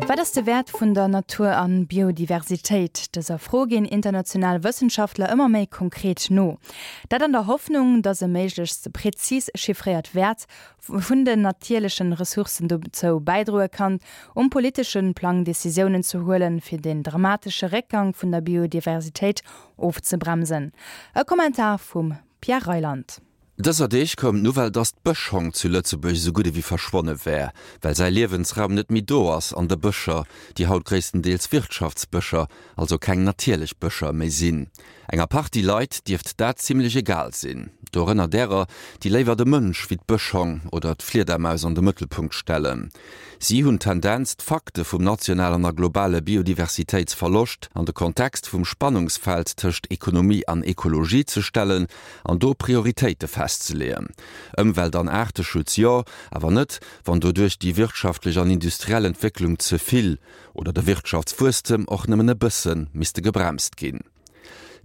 Wat ass de Wäert vun der Natur an Biodiversitéit? Dëser Fro ginn international Wëssenschaftler ëmmer méi konkret no. Dat an der Hoffnung, datt e méiglechst prezis chiffréiert Wäert vun den natierlechen Ressourcen dozou bäidroe kann, um politesche Plang Decisiounen ze huelen, fir den dramatesche Réckgang vun der Biodiversitéit ofzebremsen. E Kommentar vum Pierre Reyland. Dëser Deeg koum d'Nouvelle, dass d'Bëschhong zu Lëtzebuerg esou gutt ewéi verschwonne wär, well säi Liewensraum net méi do ass an de Bëscher, déi haut gréisstendeels Wirtschaftsbëscher, also keng natierlech Bëscher méi sinn. Enger Partie Leit dierft dat zimmlech egal sinn, dorënner därer, déi léiwer de Mënsch wéi d'Bëschhong oder d'Fliedermaus an de Mëttelpunkt stellen. Si hunn d'Tendenz, d'Fakte vum nationalen a globale Biodiversitéitsverloscht an de Kontext vum Spannungsfeld tëscht Ekonomie an Ekologie ze stellen an do Prioritéite festzeleeën. Ëmwelt an Aarteschutz jo, awer net, wann doduerch déi wirtschaftlech an industriell Entwécklung ze vill oder de Wirtschaftswuesstem och nëmmen e bësse misste gebremst ginn.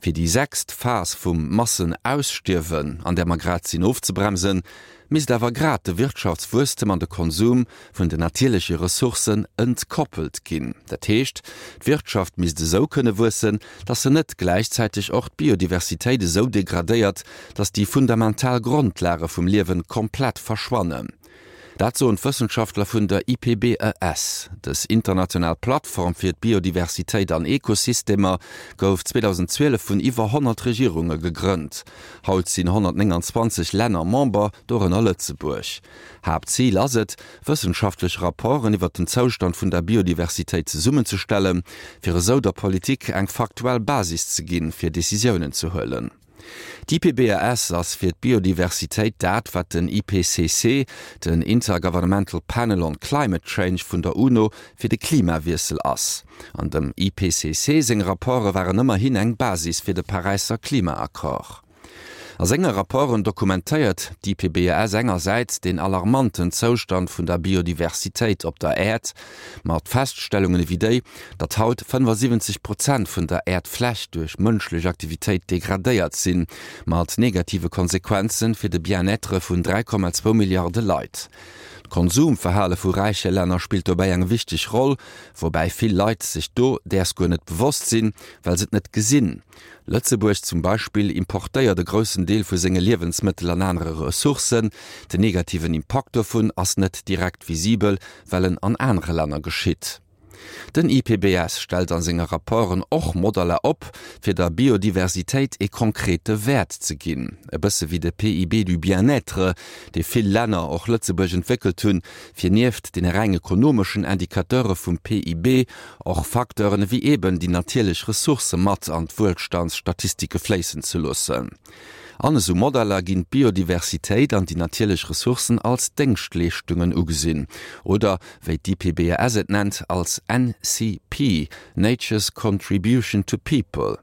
Fir déi sechst Phas vum Massenausstierwen, an där mer grad sinn, ofzebremsen, misst awer grad de Wirtschaftswuesstem an de Konsum vun den natierleche Ressourcen entkoppelt ginn. Dat heescht, d'Wirtschaft misst esou kënne wuessen, datt se net gläichzäiteg och d'Biodiversitéit esou degradéiert, datt déi fundamental Grondlage vum Liewen komplett verschwannen. Dat soen d'Wëssenschaftler vun der IPBES. Dës international Plattform fir d'Biodiversitéit an Ekosystemer gouf 2012 vun iwwer 100 Regierunge gegrënnt. Haut sinn 129 Länner Member, dorënner Lëtzebuerg. Haaptzil ass et, wëssenschaftlech Rapporten iwwer den Zoustand vun der Biodiversitéit zesummenzestellen, fir esou der Politik eng faktuell Basis ze ginn, fir Decisiounen ze huelen. D'IPBES ass fir d'Biodiversitéit dat, wat den IPCC, den Intergovernmental Panel on Climate Change vun der UNO, fir de Klimawiessel ass. An dem IPCC seng Rapporte waren ëmmerhin eng Basis fir de Paräisser Klimaaccord. A senge Rapporten dokumentéiert d'IPBES engersäits den alarmanten Zoustand vun der Biodiversitéit op der Äerd, Mat Feststellungen ewéi déi, datt haut 75 Prozent vun der Äerdfläch duerch mënschlech Aktivitéit degradéiert sinn, mat negative Konsequenze fir de Bien-être vun 3,2 Milliarde Leit. D'Konsumverhale vu räiche Länner spillt dobäi eng wichteg Roll, woubäi vill Leit sech do däers guer net bewosst sinn, well se et net gesinn. Lëtzebuerg zum Beispill importéiert e groussen Deel vu senge Liewensmëttel an anere Ressourcen. Den negativen Impakt dovun ass net direkt visibel, well en an anere Länner geschitt. Den IPBS stellt a senge Rapporten och Modeller op, fir der Biodiversitéit ee konkrete Wäert ze ginn. E bësse wéi de PIB du bien-être, dee vill Länner, och Lëtzebuerg, entwéckelt hunn, fir nieft deene reng ekonomeschen Indicateure vum PIB och Facteuren ewéi eben déi natierlech Ressourcë mat an d'Wuelstandsstatistike fléissen ze loossen. An esou Modeller ginn d'Biodiversitéit an déi natierlech Ressourcen als Déngschtleeschtungen ugesinn, oder wéi d'IPBES et nennt, als NCP, Nature's Contribution to People.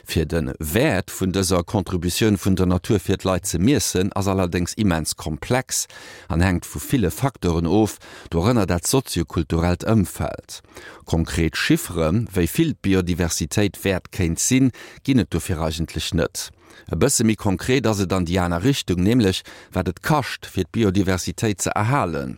Fir de Wäert vun dëser Contributioun vun der Natur fir d'Leit ze miessen, ass allerdéngs immens komplex an hänkt vu ville Facteuren of, dorënner dat soziokulturellt Ëmfeld. Konkret Chiffere wéi vill d'Biodiversitéit wäert kéint sinn, ginn et dofir eigentlech net. E bësse méi konkret ass et an déi aner Richtung, nämlech wat et kascht, fir d'Biodiversitéit ze erhalen.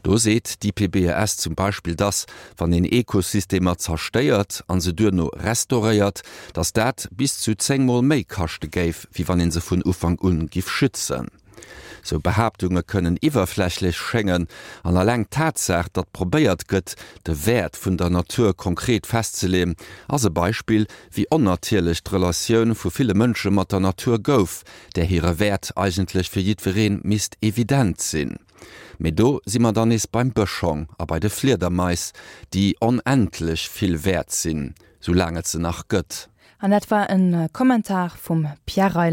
Do seet d'IPBES zum Beispill, dass, wann een Ekosystemer zerstéiert a se duerno restauréiert, dass dat bis zu 10 Mol méi kaschte géif, wéi wann ee se vun Ufank un giff schützen. Sou Behaaptunge kënnen iwwerflächlech schéngen, an alleng d'Tatsaach, datt probéiert gëtt, de Wäert vun der Natur konkret festzeleeën, ass e Beispill, wéi onnatierlech d'Relatioun vu ville Mënsche mat der Natur gouf, där hire Wäert eigentlech fir jiddweree misst evident sinn. Mee do si mer dann nees beim Bëschhong a bei de Fliedermais, déi onendlech vill wäert sinn, soulaang et se nach gëtt. An dat war e Kommentar vum Pierre Reyland.